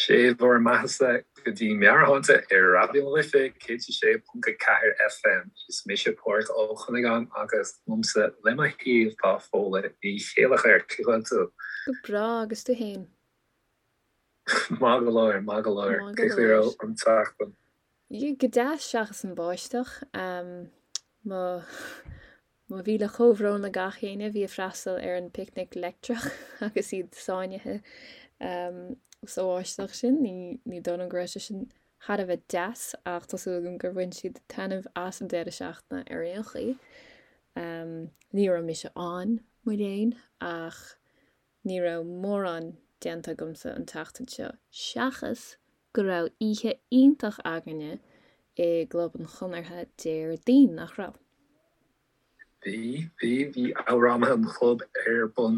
Sé bhur mbeathasa go dtí Meabhairshláinte ar Raidió na Life 106.4 FM. Is mise Pádraig Ó Cuinneagáin agus liomsa le mo thaobh tá Fódhla Ní Chéilleachair. Cén chaoi a bhfuil tú? Go breá, agus tú fhéin? Maith go leor, maith go leor. Maith go Cén chaoi a leor. raibh an tseachtain? Go deas seachas an báisteach. Mo Mo mhíle comhbhrón le gach éinne a bhí ag freastal ar an bPicnic Leictreach agus iad sáinnithe sa bháisteach sin. Ní dóigh liom go raibh sé sin thar a bheith deas ach tá súil agam gur bhain siad taitneamh as an deireadh seachtaine ar aon chaoi. Ní raibh mise ann, mo léan, ach ní raibh mórán déanta agamsa an tseachtain seo seachas go raibh oíche iontach againne i gClub an Chonartha Déardaoin, nach raibh? Bhí, bhí, bhí Amhránaithe an Chlub ar bun.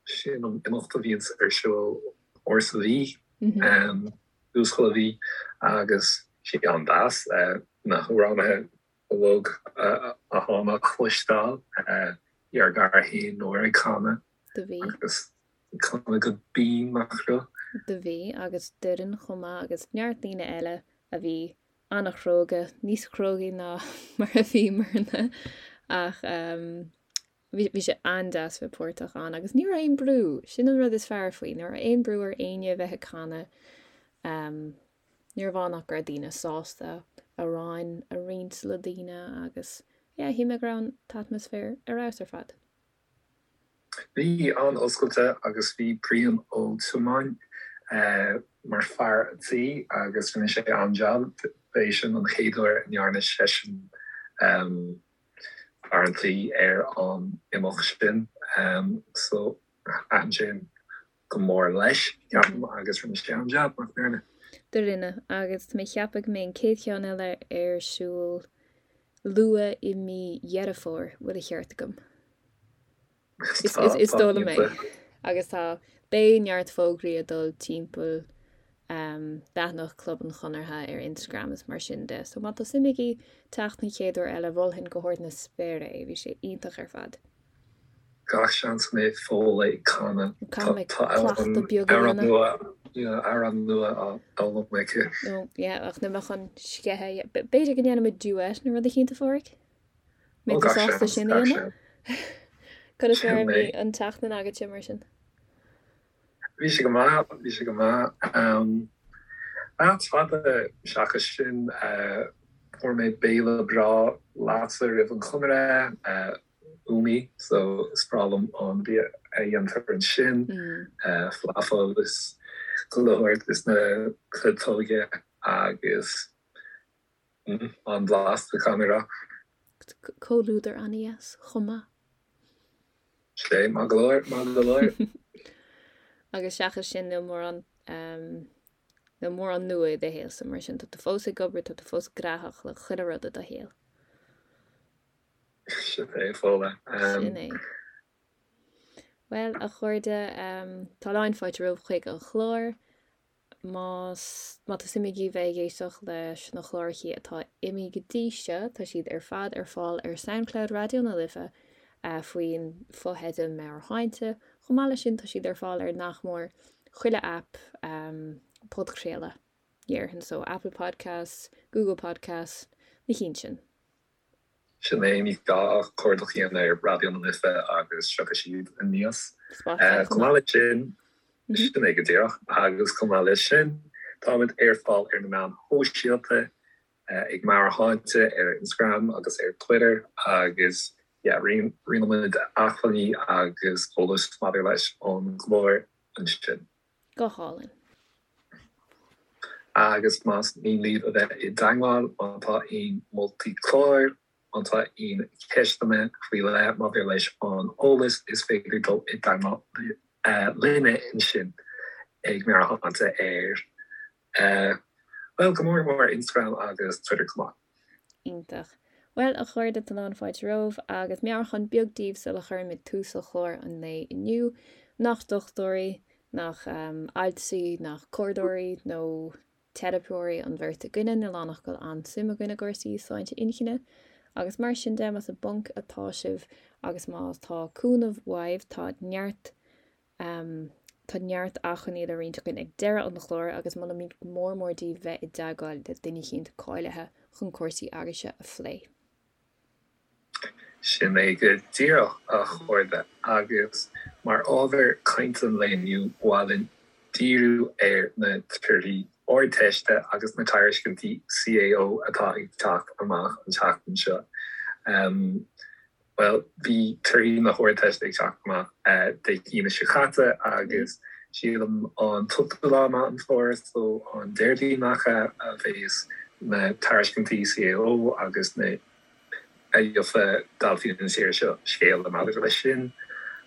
Sin an imeacht a bhíonns ar siúl uair sa mhí, tús chuile mhí, agus sé an-deas na hamhránaithe uilig atá le cloisteáil, bhí ár gcara féin Nóra ag canadh Do bhí. agus ag canadh go binn, nach raibh? Do bhí, agus Doireann chomh maith agus neart daoine eile a bhí an-chróga, níos crógaí ná mar a bhíomarna ach bhí bhí sé an-deas bheith páirteach ann agus ní raibh aon brú, sin an rud is fearr faoi, ní raibh aon brú ar éinne a bheith ag canadh. Ní raibh ann ach go raibh daoine sásta amhráin a roinnt le daoine agus yeah, shíl mé go raibh an t-atmaisféar ar fheabhas ar fad. Bhí, an-oscailte agus bhí Brian Ó Tiomáin mar fear an tí agus rinne sé an-jab. B'é sin an chéad uair a ndearna seisean fear an tí ar an imeacht sin so thaitin sé go mór leis, ceapaim, agus rinne sé an-jab, nach ndearna? Do rinne, agus tá mé ag ceapadh go mbeidh an chéad cheann eile ar siúl luath i mí Dheireadh Fómhair, bhfuil a cheart agam? Is dóigh liom é. Agus tá, beidh neart fógraí ag dul timpeall leathanach Club an Chonartha ar Instagram is mar sin de, so má tá suim agaibh teacht an chéad uair eile, mholfainn go hard na spéire é, bhí sé iontach ar fad. Gach seans go mbeidh Fódhla ag canadh. Caithfidh mé cleachtadh beag a dhéanamh. Amhrán nua á fhoghlaim aici. Nó, yeah, ach níl mé chun sceitheadh. B'fhéidir go ndéanfaidh muid duet nó rud eicínt, a Phádraig? Mbeidh tú sásta sin a dhéanamh? Conas mar a bhí an tseachtain agatsa mar sin? Bhí sé go maith, bhí sé go maith. Ach fada seachas sin, fuair mé béile breá leatsa roimh an Chonradh, Umi, so is breá liom an bia a dhéantar ansin, falafel is chuile shórt is na cleiteoga agus an-bhlasta, caithfidh mé a rá. Comhluadar an-dheas chomh maith. Sé, maith go leor, maith go leor. Agus seachas sin níl mórán, níl mórán nua i do shaolsa mar sin, tá tú fós ag obair, tá tú fós gnóthach le chuile rud i do shaol. Sin é, Fódhla. Sin é. Bhuel, a chairde, tá lán fáilte romhaibh chuig an chlár. Más, má tá suim agaibh bheith ag éisteacht leis na clárachaí atá imithe go dtí seo, tá siad ar fad ar fáil ar Soundcloud Raidió na Life faoin fotheideal Meabhairshláinte. Chomh maith leis sin, tá siad ar fáil ar nach mór chuile aip podchraoladh, déarfainn, so Apple Podcasts, Google Podcasts, na cinn sin. Sin é, ní gá ach cuardach a dhéanamh ar Raidió na Life agus tiocfaidh siad aníos. Spotify Chomh maith leis sin, sin é go díreach, agus chomh maith leis sin, táimid ar fáil ar na meáin shóisialta, ag Meabhairshláinte ar Instagram agus ar Twitter agus yeah, roinnimid acmhainní agus eolas maidir leis an gclár ansin. Go hálainn. Agus más mian libh a bheith i dteagmháil, má tá aon moltaí cláir, má tá aon cheisteanna faoi leith maidir leis an eolas, is féidir dul i dteagmháil linne ansin ag Meabhairshláinte ar, bhuel, go mór mór Instagram agus Twitter chomh maith. Iontach. Bhuel, a chairde, tá lán fáilte romhaibh agus meabhrúchán beag daoibh sula chuirimid tús le clár an lae inniu. Nach dochtúirí, nach altraí, nach comhairleoirí nó teiripeoirí an bheirt againne, níl ann ach go bhfuil an-suim againn i gcúrsaí sláinte inchinne. Agus mar sin de, más i bponc atá sibh agus má tá cúnamh uaibh, tá neart. Tá neart acmhainní le roinnt againn ag deireadh an chláir agus molaimid go mór mór daoibh bheith i dteagmháil le duine eicínt cáilithe chun cúrsaí agaibhse a phlé. Sin é go díreach, a chairde, agus mar ábhar cainte an lae inniu, ba mhaith linn díriú ar na torthaí Ardteiste agus na tairiscintí CAO atá ag teacht amach an tseachtain seo. Bhuel, bhí torthaí na hArdteiste ag teacht amach Dé hAoine seo caite agus sílim an t-ochtú lá Meán Fómhair, so an Déardaoin nach ea, a bheas na tairiscintí CAO agus na a gheofaidh daltaí na tíre seo scéala maidir leis sin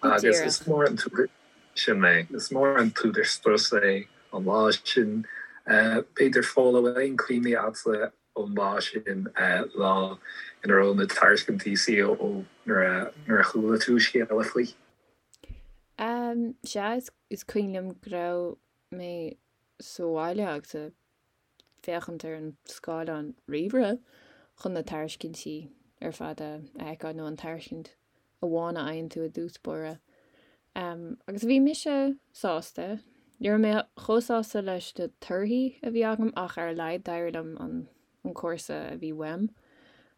agus is mór an t-údar sin é, is mór an t-údar strus é an lá sin. B'fhéidir Fódhla, bhfuil aon cuimhní agatsa ón lá sin, lá ina raibh na tairiscintí CAO nuair a chuala tú scéala faoi? Sea, is cuimhin liom go raibh mé sa bhaile agus ag féachaint ar an scáileán ríomhaire chun na tairiscintí ar fad a fheiceáil, nó an tairiscint amháin a fhaigheann tú i dtús báire. Agus bhí mise sásta. Ní raibh mé chomh sásta leis na torthaí a bhí agam ach ar a laghad d'éirigh liom an an cúrsa a bhí uaim.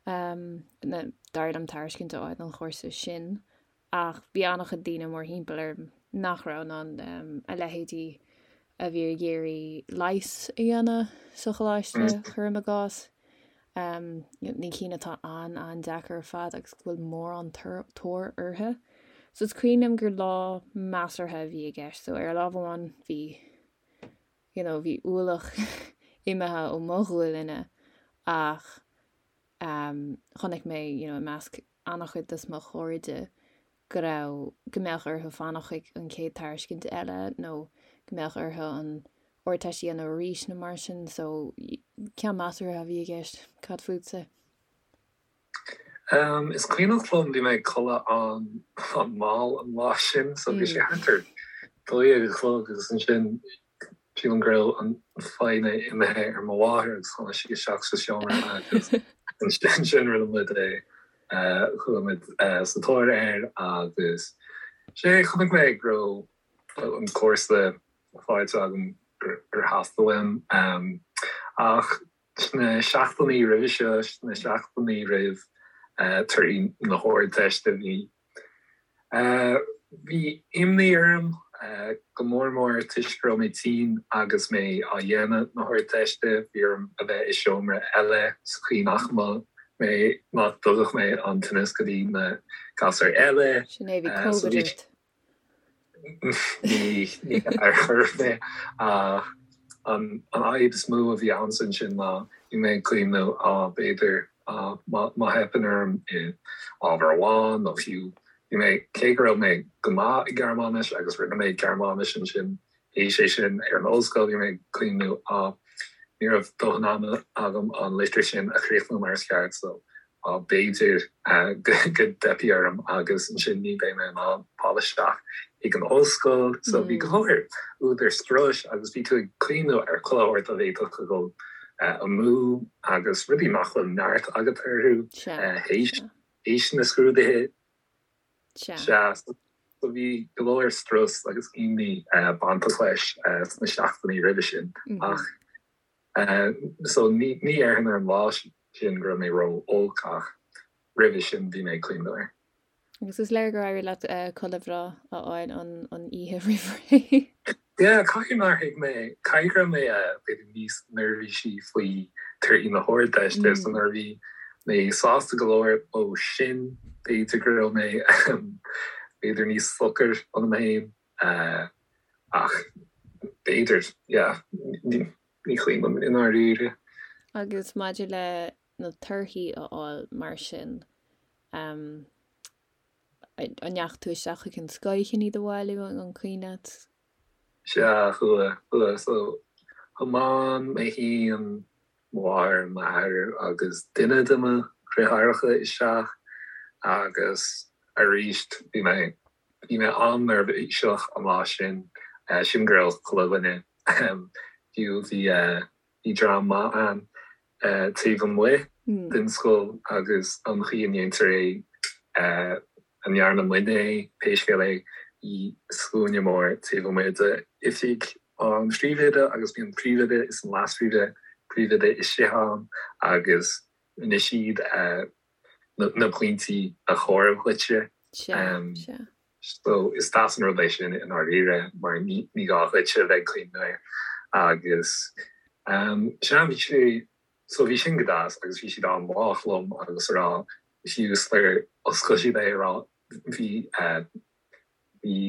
D'éirigh liom tairiscint a fháil don chúrsa sin. Ach bhí an-chuid daoine mórthimpeall orm nach raibh in ann, a leithéidí a bhí ag iarraidh leigheas a dhéanamh sa choláiste, cuirim i gcás. Na cinn atá an-an-deacair ar fad agus go bhfuil mórán tóir orthu. So is cuimhin liom gur lá measartha a bhí i gceist. So ar lámh amháin bhí, you know, bhí ualach imithe ó mo ghualainne ach chonaic mé, you know, i measc an-chuid de mo chairde go raibh, go mbeadh orthu fanacht chuig an chéad tairiscint eile nó go mbeadh orthu an Ardteist a dhéanamh arís nó mar sin so ceann measartha a bhí i gceist. Cad fútsa? Um, is cuimhneach liom bhí mé ag codladh an-mhall an lá sin so bhí sé thart ar 12 a chlog agus ansin Sílim go raibh an foighne imithe ar mo mháthair agus tháinig sí isteach sa seomra agus ansin rinne muid é, chuaigh muid sa tóir air agus sé, chonaic mé go raibh an cúrsa faighte agam gur theastaigh uaim ach sna seachtainí roimhe seo, sna seachtainí roimh torthaí na hArdteiste, bhí Bhí imní orm, go mór mór toisc go raibh mé tinn agus mé á dhéanamh na hArdteiste. Bhí orm a bheith i seomra eile sa chaoi nach mbeadh mé, nach dtugadh mé an tinneas go dtí na gasúir eile. Sin é, bhí Covid ort. Ní ar chor ar bith. Ach an fhadhb is mó a bhí a'msa ansin ná bhí mé ag cuimhneamh, á, b'fhéidir má theipeann orm i ábhar amháin nó fiú bhí mé, cé go raibh mé go maith i Gearmáinis agus rinne mé Gearmáinis ansin, théis é sin ar an ollscoil, bhí mé ag cuimhneamh, á, ní raibh dóthain ama agam an litir sin a chríochnú mar is ceart so b'fhéidir go dteipfidh orm agus ansin ní bheidh mé in ann fáil isteach ag an ollscoil. So bhí go leor údar struis agus bhí tú ag cuimhneamh ar chuile shórt a bhféadfadh a dhul amú agus rudaí nach bhfuil neart agat orthu théis na scrúduithe. Sea. So bhí go leor strus agus imní bainteach leis sna seachtainí roimhe sin ach So ní déarfainn ar an lá sin go raibh mé ró-olc ach roimhe sin bhí mé ag cuimhneamh air. Agus is léir gur éirigh leat codladh bhreá a fháil an oíche roimh ré. Yeah, caithfidh nár thuig mé, caithfidh go raibh mé b'fhéidir níos neirbhísí faoi torthaí na hArdteiste so nuair a bhí mé sásta go leor ó sin b'fhéidir go raibh mé b'fhéidir níos socair ionam féin. Ach b'fhéidir, yeah, ní cuimhin liom i ndáiríre. Agus maidir le na torthaí a fháil mar sin, an ndeachaigh tú isteach chuig an scoil chun iad a bhailiú, an cuimhin leat? Sea, chuaigh, chuaigh. So, thiomáin mé féin, mo mháthair, m'athair agus duine de mo dheartháireacha isteach agus arís bhí mé Bhí mé an-neirbhíseach an lá sin. Sílim go raibh chuile dhuine, fiú bhí bhí dream maith ann taobh amuigh den scoil agus an chaoi a ndéantar é, a ndearna muidne é, pé scéal é. i scuaine mór taobh amuigh de oifig an phríomhoide agus bhí an príomhoide is an leas-phríomhoide príomhoide istigh ann agus rinne siad na pointí a chomhaireamh dhuitse. Sea, sea. So is deas an rud é sin i ndáiríre mar ní gá dhuit a bheith ag cuimhneamh air agus sea bhí sé so bhí sin go deas agus bhí siad an-lách liom agus a rá fiú sular oscail siad é a rá bhí bhí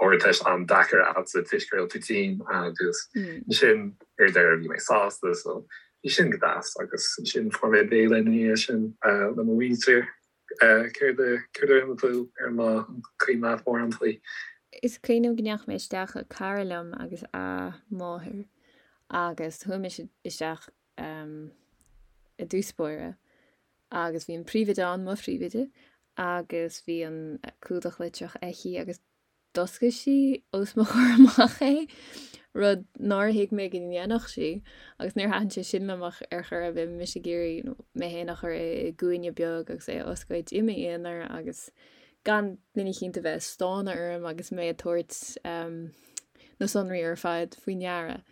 Ardteist an-deacair agatsa toisc go raibh tú tinn agus ansin ar deireadh bhí mé sásta so bhí sin go deas agus ansin fuair mé béile ina dhiaidh sin le mo mhuintir. Céard a céard a rinne tú ar an lá an cuimhin leat mórán faoi? Is cuimhin liom go ndeachaigh mé isteach le cara liom agus a máthair agus chuaigh mise isteach i dtús báire agus bhí an príomhoide ann, mo phríomhoide, agus bhí an clúdach litreach aici agus d'oscail sí os mo chomhair amach é, rud nár thuig mé go ndéanfadh sí, agus níor thaitin sé sin liom ach ar chor ar bith, mise ag iarraidh mé féin a chur i gcúinne beag agus é a oscailt i m'aonar agus gan duine eicínt a bheith ag stánadh orm agus mé ag tabhairt na sonraí ar fad faoi ndeara.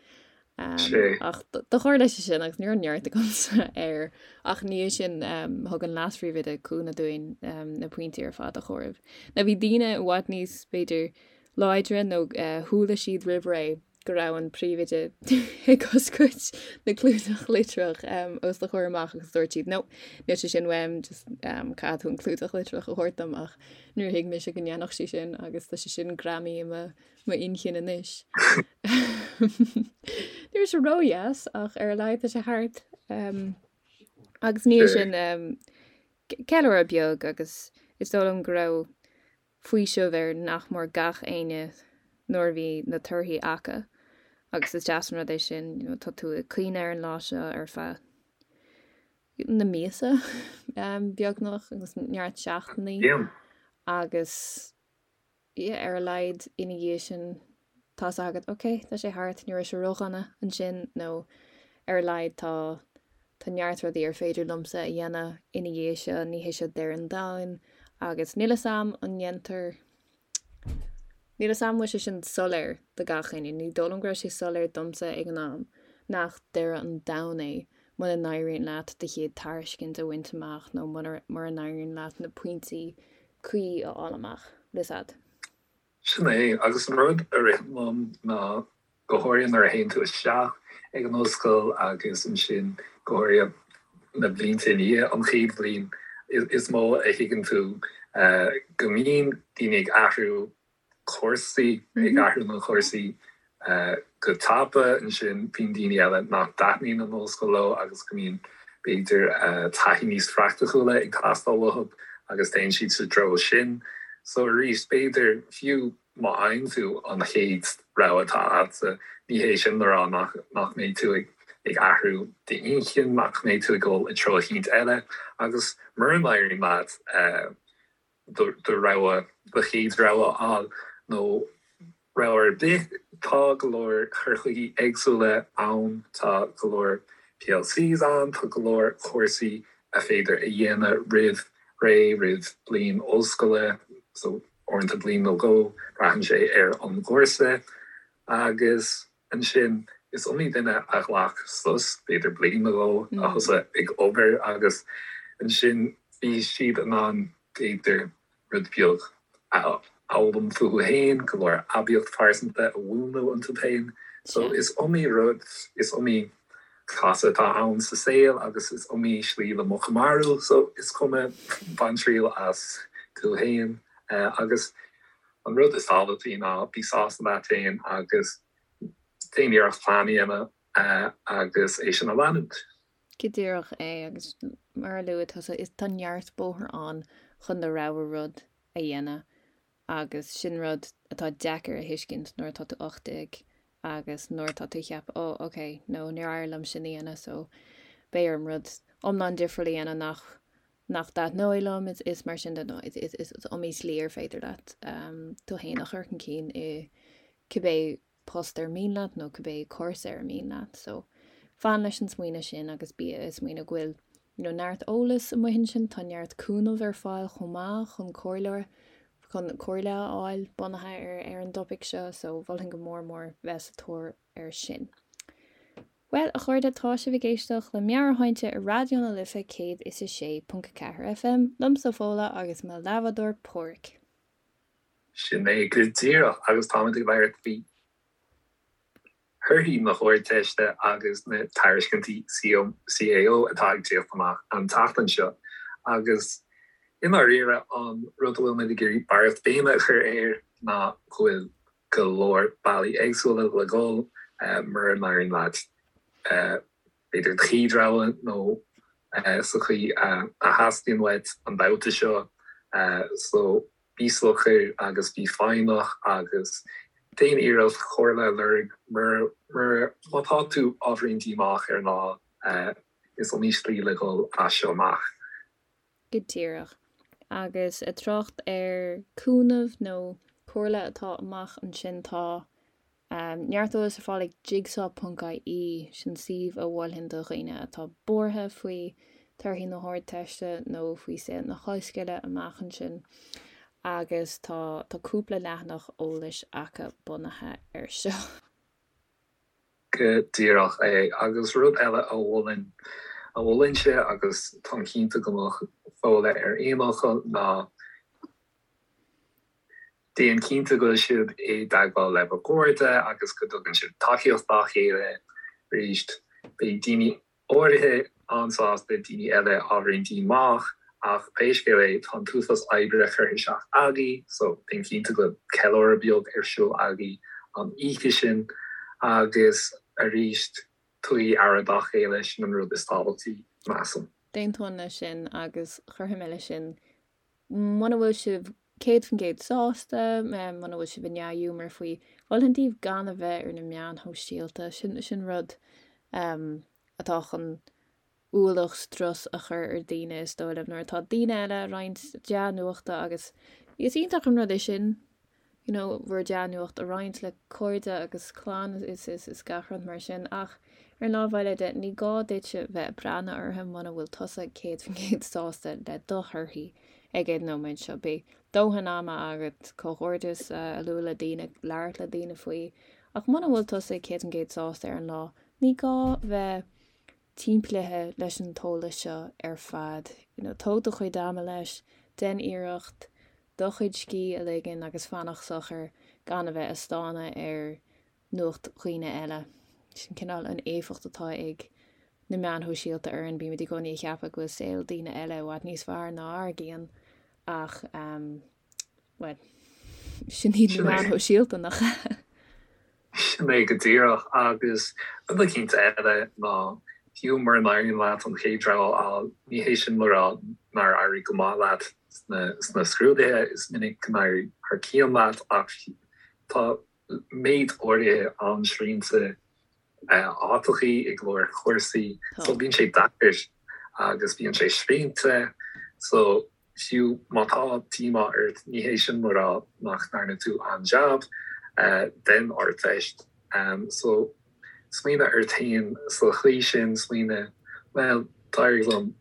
Ach do tharla sé sin agus ní raibh neart agamsa air ach ina dhiaidh sin thug an leas-phríomhoide cúnamh dúinn na pointí ar fad a chomhaireamh. Now bhí daoine i bhfad níos, b'fhéidir, láidre nó chuala siad roimh ré go raibh an príomhoide ag oscailt na clúdach litreach os do chomhair amach agus dúirt siad no, níl sé sin uaim, just caithfidh tú an clúdach litreach a thabhairt dom ach níor thuig mise go ndéanfadh sí sin agus tá sé sin greamaithe i mo m'inchinn anois. Ní raibh sé ródheas ach ar a laghad tá sé thart. Agus ina dhiaidh sin ceiliúradh beag agus is dóigh liom go raibh faoiseamh ar nach mór gach éinne nuair a bhí na torthaí acu agus is deas an rud é sin, you know, tá tú ag cuimhneamh ar an lá seo ar feadh na míosa beagnach agus neart seachtainí agus yeah, ar a laghad ina dhiaidh sin tá's agat, ok, tá sé thart, ní raibh sé ródhona ansin nó ar a laghad tá tá neart rudaí ar féidir liomsa a dhéanamh ina dhiaidh seo, ní hé seo deireadh an domhain agus níl 'fhios a'm an ndéantar níl 'fhios a'm an bhfuil sé sin soiléir do gach éinne, ní dóigh liom go raibh sé soiléir domsa ag an am nach deireadh an domhain é muna n-éiríonn leat do chéad tairiscint a bhaint amach nó mura n-éiríonn leat na pointí cuí a fháil amach. Bhfuil 'fhios a'd. Sin é, agus an rud a ritheann liom ná go háirithe nuair a théann tú isteach ag an ollscoil agus ansin go háirithe na blianta i ndiaidh an chéad bhliain, is mó a thuigeann tú go mbíonn daoine ag athrú cúrsaí, ag athrú na gcúrsaí go tapa. Ansin bíonn daoine eile nach dtaitníonn an ollscoil leo agus go mbíonn, b'fhéidir, taithí níos praiticiúla ag teastáil uathu agus téann siad sa treo sin. So arís, b'fhéidir, fiú má fhaigheann tú an chéad rogha atá agatsa, ní hé sin le rá nach mbeidh tú ag athrú d'inchinn, nach mbeidh tú ag dul i dtreo eicínt eile agus mura n-éiríonn leat, do rogha, do chéad rogha a fháil nó rogha ar bith. Tá go leor cur chuigí éagsúla ann, tá go leor PLCs ann, tá go leor cúrsaí a féidir a dhéanamh roimh ré, roimh bliain ollscoile, so uaireanta bliain nó dhó, braitheann sé ar an gcúrsa. Agus ansin is iomaí duine a ghlac sos, b'fhéidir bliain nó dhó, a thosaigh ag obair agus ansin bhí siad in ann b'fhéidir rud beag a fhoghlaim fúthu féin, go leor aibíocht phearsanta a mhúnlú iontu féin. So is iomaí rud, is iomaí casadh atá ann sa saol agus is iomaí slí le muc a mharú, so is cuma, bain triail as tú féin agus An rud is tábhachtaí ná bí sásta leat féin agus déan iarracht plean a dhéanamh agus é sin a leanúint. Go díreach é, agus mar a luaigh tusa, is tá neart bóthar ann chun do rogha rud a dhéanamh agus sin rud atá deacair a thuiscint nuair atá tú 18 agus nuair atá tú ag ceapadh oh ok, no níor éirigh liom sin a dhéanamh so beidh orm rud iomlán difriúil a dhéanamh nach nach dtaitneoidh liom, is mar sin de, nó is iomaí slí ar féidir leat tú féin a chur chun cinn i cibé post ar mian leat nó cibé cúrsa ar mian leat. So, fan leis an smaoineamh sin agus bí ag smaoineamh go bhfuil you know, neart eolas amuigh ansin, tá neart cúnamh ar fáil chomh maith chun comhairle. chun comhairle a fháil bunaithe ar ar an dtopaic seo so mholfainn go mór mór bheith sa tóir air sin. Bhuel, a chairde, tá sibh ag éisteacht le Meabhairshláinte ar Raidió na Life 106.4 FM, liomsa Fódhla agus mo leathbhádóir Páraic. Sin é go díreach, agus táimid ag labhairt faoi thorthaí na hArdteiste agus na tairiscintí CAO atá ag tíocht amach an tseachtain seo. Agus i ndáiríre, an rud a bhfuil muid ag iarraidh barraíocht béime a chur air ná go bhfuil go leor bealaí éagsúla le dhul mura n-éiríonn leat b'fhéidir do chéad rogha nó sa chaoi a theastaíonn uait an babhta seo. So bí socair agus bí foighneach agus déan iarracht comhairle a lorg mura má tá tú ábhairín díomách ar an lá is iomaí slí le dhul as seo amach. Go díreach. Agus ag trácht ar cúnamh nó comhairle atá amach ansin tá neart eolais ar fáil ag jigsaw ponc ie, sin suíomh a mholfainn do dhaoine atá buartha faoi torthaí na hArdteiste nó faoi saol na hollscoile amach ansin agus tá tá cúpla leathanach eolais acu bunaithe air seo. Go díreach é. Agus rud eile a mholfainn, a mholfainnse agus táim cinnte go mbeadh Fódhla ar aon fhocal, ná déan cinnte go bhfuil sibh i dteagmháil le bhur gcairde agus go dtugann sibh tacaíocht dá chéile. Arís, beidh daoine áirithe an-sásta, daoine eile ábhairín díomách, ach pé scéal é, tá an t-uafás oibre curtha isteach agaibh, so déan cinnte go bhfuil ceiliúradh beag ar siúl agaibh an oíche sin, agus arís, tugaigí aire dá chéile, sin an rud is tábhachtaí, measaim. D'aontóinn leis sin, agus chuirfinn leis sin Muna bhfuil sibh 100% sásta, muna bhfuil sibh i ndea-ghiúmar faoi, mholfainn daoibh gan a bheith ar na meáin shóisialta. Sin, sin rud atá chun ualach strus a chur ar daoine, is dóigh liom, nuair atá daoine eile ag roinnt dea-nuachta agus is iontach an rud é sin. you know bhur dea-nuacht a roinnt le cairde agus clann is is is gach rud mar sin ach ar an lámh eile de ní gá duitse bheith ag breathnú orthu muna bhfuil tusa 100% sásta le do thorthaí ag an nóiméad seo. Beidh dóthain ama agat comhghairdeas a lua le daoine, labhairt le daoine faoi ach muna bhfuil tusa 100% sásta ar an lá ní gá bheith timpeallaithe leis an t-eolas seo ar fad. You know, tóg do chuid ama leis, déan iarracht do chuid scíth a ligean agus fanacht socair gan a bheith ag stánadh ar nuacht dhaoine eile. Sin cineál an éifeacht atá ag na meáin shóisialta orainn, bímid i gcónaí ag ceapadh go bhfuil saol daoine eile i bhfad níos fearr ná ár gcinn ach um, bhuel, sin iad na meáin shóisialta nach ea? Sin é go díreach. Agus rud eicínt eile ná, fiú mura n-éiríonn leat an chéad rogha a fháil, ní hé sin le rá nár éirigh go maith leat sna scrúduithe, is minic go n-éiríonn thar cionn leat ach tá méid áirithe an-srianta áiteachaí i go leor cúrsaí so bíonn sé deacair agus bíonn sé srianta so Fiú má tá díomá ort, ní hé sin le rá nach ndearna tú an-jab den Ardteist. So, smaoinigh ort féin sa chaoi sin, smaoinigh, bhuel, d'éirigh liom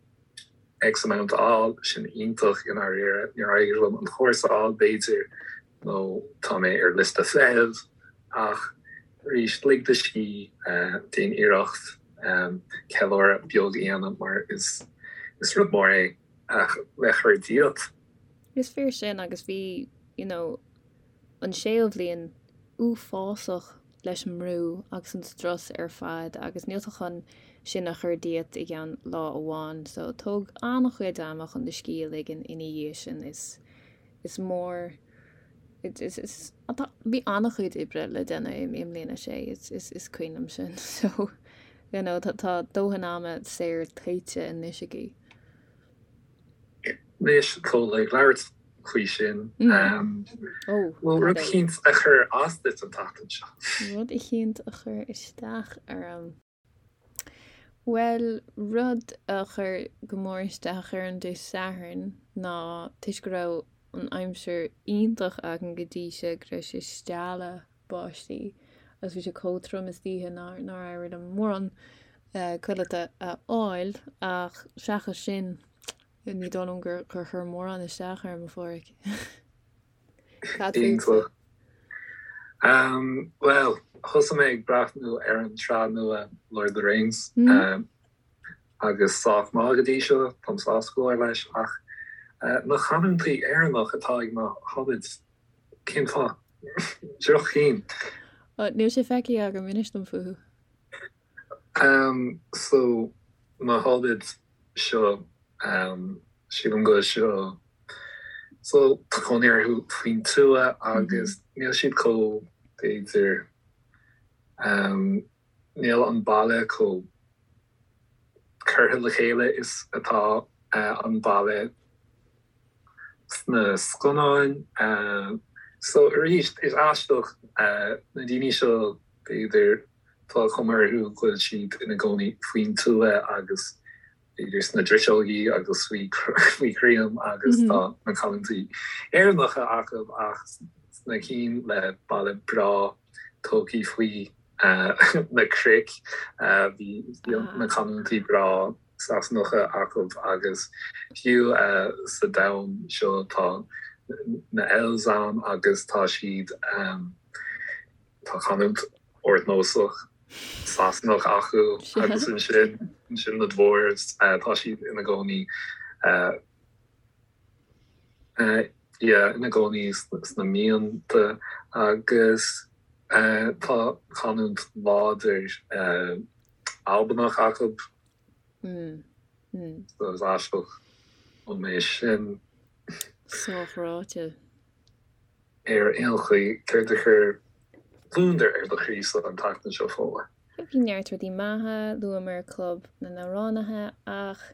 X amount a fháil, sin iontach i ndáiríre, níor éirigh liom an cúrsa a fháil, b'fhéidir, nó tá mé ar liosta feithimh, ach arís, lig do scíth, déan iarracht ceiliúradh beag a dhéanamh mar is rud mór é. ach le cur díot. Is fíor sin agus bhí you know an séú bhliain uafásach leis an mbrú agus an strus ar fad agus níl tú chun sin a chur díot i gceann lá amháin so tóg an-chuid ama chun do scíth a ligean ina dhiaidh sin is is mór is is tá bhí an-chuid oibre le déanamh i mbliain a sé is is is cuimhin liom sin so you know tá tá dóthain ama saor tuillte anois agaibh. Anois tá ag labhairt faoi sin. Bhfuil rud eicínt a chuir as duit an tseachtain seo? Rud eicínt a chuir isteach orm. Bhuel, rud a chuir go mór isteach orm Dé Sathairn ná toisc go raibh an aimsir iontach againn go dtí seo go raibh sé stealladh báistí agus bhí sé chomh trom istoíche nár nár éirigh liom mórán codlata a fháil ach seachas sin ní dóigh liom gur gur chuir mórán isteach orm a Pháraic. Cad fútsa? Bhuel, thosaigh mé ag breathnú ar an tsraith nua Lord of the Rings agus sách maith go dtí seo, táim sásta go leor leis, ach na canúintí Éireannach atá ag na hobbits, cén fáth? Droch-chinn. Níl sé feicthe agam, inis dom fúthu. So, na hobbits seo, sílim go seo, so tá cónaí orthu faoin tuath agus níl siad chomh, b'fhéidir, níl an baile chomh curtha le chéile is atá an baile sna scannáin. So arís, is aisteach na daoine seo, b'fhéidir, Tá cuma orthu go bhfuil siad ina gcónaí faoin tuath agus b'fhéidir sna driseogaí agus faoi chrainn agus tá na canúintí Éireannacha acu ach sna cinn le baile breá tógtha faoi na cnoic bhí na canúintí breá Sasanacha acu agus fiú sa domhan seo tá na elves ann agus tá siad Tá canúint ardnósach Sasanach acu agus ansin ansin na dwarves tá siad ina gcónaí yeah ina gcónaí sna mianta agus tá canúint láidir Albanach acu. So is aisteach liom é sin. Sách ráite. Ar aon chaoi, céard a chuir gliondar ar do chroí-sa an tseachtain seo, Fódhla? Bhí neart rudaí maithe, luamar Club na nAmhránaithe, ach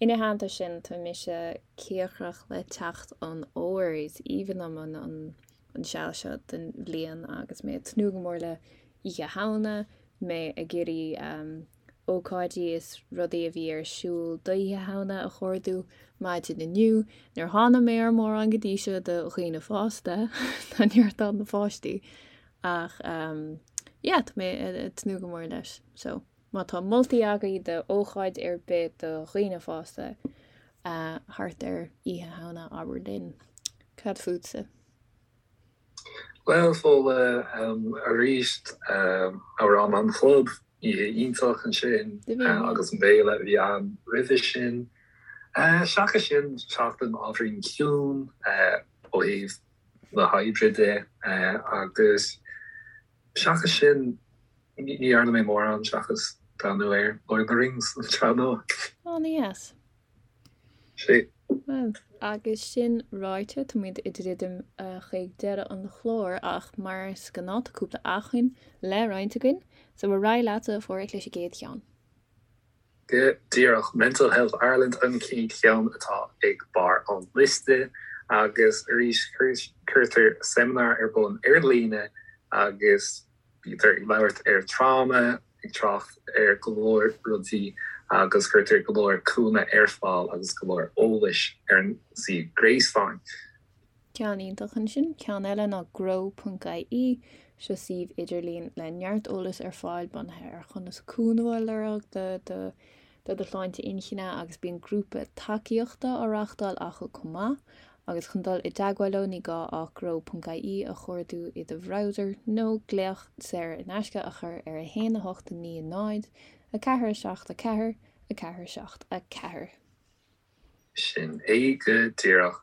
ina theannta sin tá mise cíocrach le teacht an fhómhair. Is aoibhinn liom an an seal seo den bhliain agus mé ag tnúth go mór le Oíche Shamhna, mé ag iarraidh ócáidí is rudaí a bhí ar siúl d'Oíche Shamhna a chuardú maidin inniu. Níor tháinig mé ar mórán go dtí seo do dhaoine fásta, tá neart ann do pháistí. Ach yeah, tá mé ag tnúth go mór leis. So, má tá moltaí agaibh do ócáid ar bith do dhaoine fásta thart ar Oíche Shamhna, abair linn. Cad fútsa? Bhuel, Fódhla, arís, Amhrán an Chlub, oíche iontach ansin agus an béile a bhí ann roimhe sin. Seachas sin, seachtain ábhairín ciúin ó thaobh na hoibre de agus seachas sin, ní dhearna mé mórán seachas breathnú ar Lord of the Rings an tsraith nua. An-dheas. Sea. Bhuel, agus sin ráite, táimid ag druidim chuig deireadh an chláir ach mar is gnáth tá cúpla acmhainn le roinnt againn, so ar aghaidh leatsa, a Pháraic, leis an gcéad cheann. Go díreach, Mental Health Ireland an chéad cheann atá ag barr an liosta agus arís cuirtear seimineár ar bun ar líne agus Bítear ag labhairt ar tráma, ag trácht ar go leor rudaí agus cuirtear go leor cúnamh ar fáil agus go leor eolais ar an suíomh gréasáin. Ceann iontach ansin. Ceann eile ná grow.ie. Seo suíomh idirlín le neart eolais ar fáil bunaithe ar chonas cúnamh a lorg do do do do shláinte inchinne agus bíonn grúpa tacaíochta á reáchtáil acu chomh maith. Agus chun dul i dteagmháil leo ní gá ach grow.ie a chuardú i do bhrowser nó glaoch saor in aisce a chur ar 1 8 9 0 4 7 4 4 7 4. Sin é go díreach.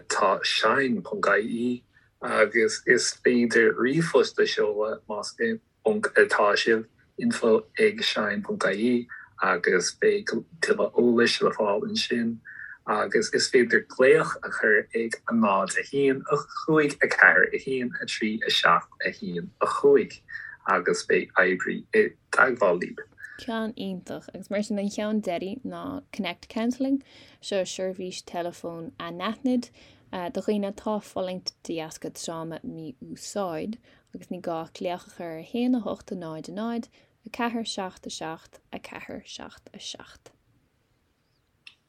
Tá shine.ie agus is féidir ríomhphost a sheoladh más i bponc atá sibh, info ag shine ponc ie agus beidh tuilleadh eolais le fáil ansin agus is féidir glaoch a chur ag 0 1 5 4 1 3 7 1 5 agus beidh oibrí i dteagmháil libh. Ceann iontach. Agus mar sin an cheann deiridh ná Connect Counselling. Seo seirbhís teileafóin anaithnid do dhaoine atá ag fulaingt de dheasca tráma mí-úsáid. Agus ní gá ach glaoch a chur ar 1 8 0 0 4 7 7 4 7 7.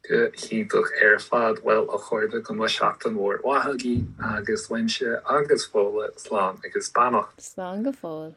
Go hiontach ar fad. Bhuel, a chairde, go mbeidh seachtain mhór mhaith agaibh agus uaimse agus Fódhla, slán agus beannacht. Slán go fóill.